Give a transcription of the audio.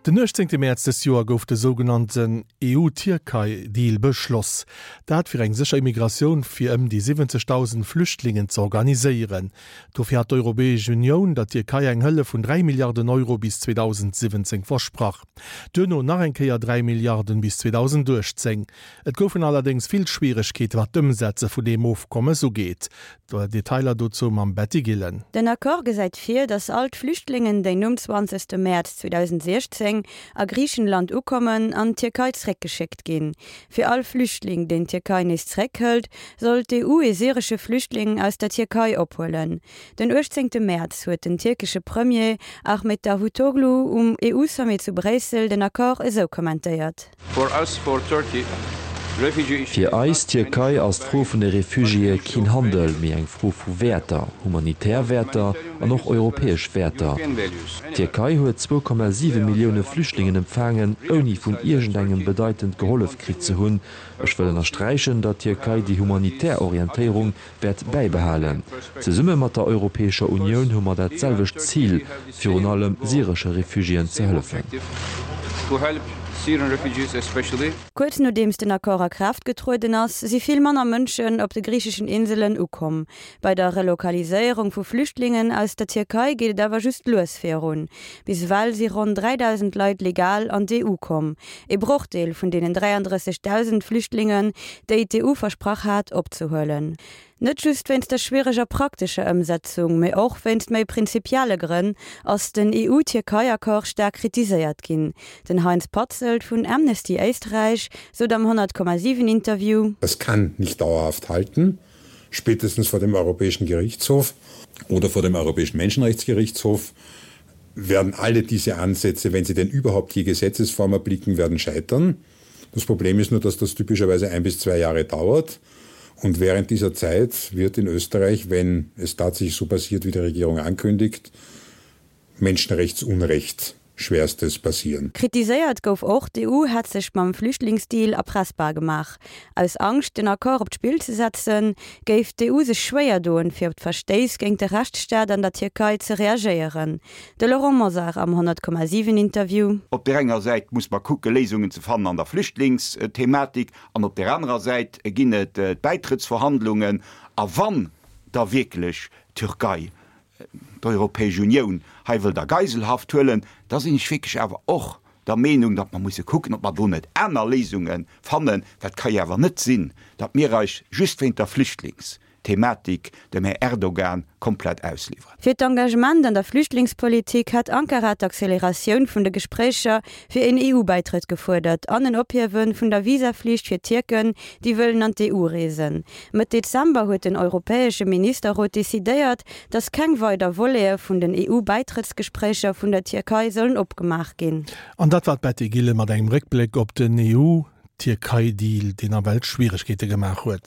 Den 18 Mäerz dës Joer gouf de sougenannten EU-Tierkei-Deal beschloss. Dat fir eng sécher Immigratioun fir ëm déi 70.000 Flüchtlingen ze organiséieren. Dofir hat d'Europäesch Unioun der Tierkei eng Hëllef vun 3 Milliarden Euro bis 2017 versprach. Duerno nach eng Kéier 3 Milliarden bis 2018. Et goufen allerdéngs vill Schwieregkeete wat d'Ëmsetze vun deem Ofkommes ugeet. Detailer dozou mam Betty Gillen. Den Accord gesäit vir, datt all d'Flüchtlingen, déi nom 20 Mäerz 2016 a Griichenland ukommen, an d'Tierkei zréckgeschéckt ginn. Fir all Flüchtling, deen d'Tierkei nees zréckhëlt, soll d'EU ee syresche Flüchtling aus der Tierkei ophuelen. Den 18 Mäerz huet den tierkesche Premier Ahmet Davutoglu um EU-Sommet zu Bréissel den Accord esou kommentéiert. Fir eis, d'Tierkei, ass d'Fro vun de Refugiéë keen Handel, mee eng Fro vu Wäerter, humanitär Wäerter an och europäesch Wäerter. D'Tierkei huet 2,7 Millioune Flüchtlingen empfaangen, ouni vun iergendengem bedeitend gehollef kritt ze hunn. Ech wëll ënnersträichen, datt d'Tierkei déi humanitär Orientéierung wäert bäibehalen. Zesumme mat der Europäescher Unioun hu mer dat selwecht Zil, virun allem syresche Refugiéen ze hëllefen. Kuerz nodeems den Accord a Kraaft getrueden ass, si vill manner Mënschen op de griicheschen Inselen ukomm. Bei der Relokaliséierung vu Flüchtlingen aus der Tierkei geet et awer just lues virun. Bis ewell si ronn 3.000 Leit legal an d'EU komm, ee Brochdeel vun deenen 33.000 Flüchtlingen, déi d'EU versprach hat opzehuelen. Net just wéinst der schwiereger praktescher Ëmsetzung, mee och wéinst méi prinzipielle Grënn ass den EU-Tierkei-Accord staark kritiséiert ginn. Den Heinz Patzelt vun Amnesty Éisträich sot am 100,7 Interview. Das kann nicht dauerhaft halten, spätestens vor dem Europäischen Gerichtshof oder vor dem Europäischen Menschenrechtsgerichtshof werden alle diese Ansätze, wenn sie denn überhaupt je Gesetzesform erblicken, werden scheitern. Das Problem ist nur, dass das typischerweise ein bis zwei Jahre dauert. Und während dieser Zeit wird in Österreich, wenn es tatsächlich so passiert, wie die Regierung ankündigt, Menschenrechtsunrecht schwerstes passieren. Kritiséiert gouf och, d'EU hätt sech mam Flüchtlingsdeal erpressbar gemaach. Aus Angscht, den Accord op d'Spill ze setzen, géif d'EU sech schwéier doen, fir op d'Verstéiss géint de Rechtsstaat an der Tierkei ze reagéieren. De Laurent Mosar am 100,7 Interview. Op där enger Säit muss mer kucke Léisungen ze fannen an der Flüchtlingsthematik an op där anerer Säit ginn et d'Bäitrëttsverhandlungen. A wann da wierklech d'Türkei d'Europäesch Unioun hei wëllt a Geiselhaft huelen, da sinn ech wierklech awer och der Meenung, datt mer musse kucken, ob mer do net aner Léisunge fannen. Dat ka jo awer net sinn, datt mir eis just wéint der Flüchtlingsthematik dem Här Erdogan komplett ausliwweren. Fir d'Engagement an der Flüchtlingspolitik hat Ankara d'Acceleratioun vun de Gespréicher fir een EU-Bäitrëtt gefuerdert an en Ophiewe vun der Visaflicht fir Tierken, déi wëllen an d'EU reesen. Mëtt Dezember huet den Europäesche Ministerrot decidéiert, datt keng weider Volete vun den EU-Bäitrëttsgespréicher vun der Tierkei sollen opgemaach ginn. An dat war d'Betty Gillen mat engem Réckbléck op den EU-Tierkei-Deal, deen nawell Schwieregkeete gemaach huet.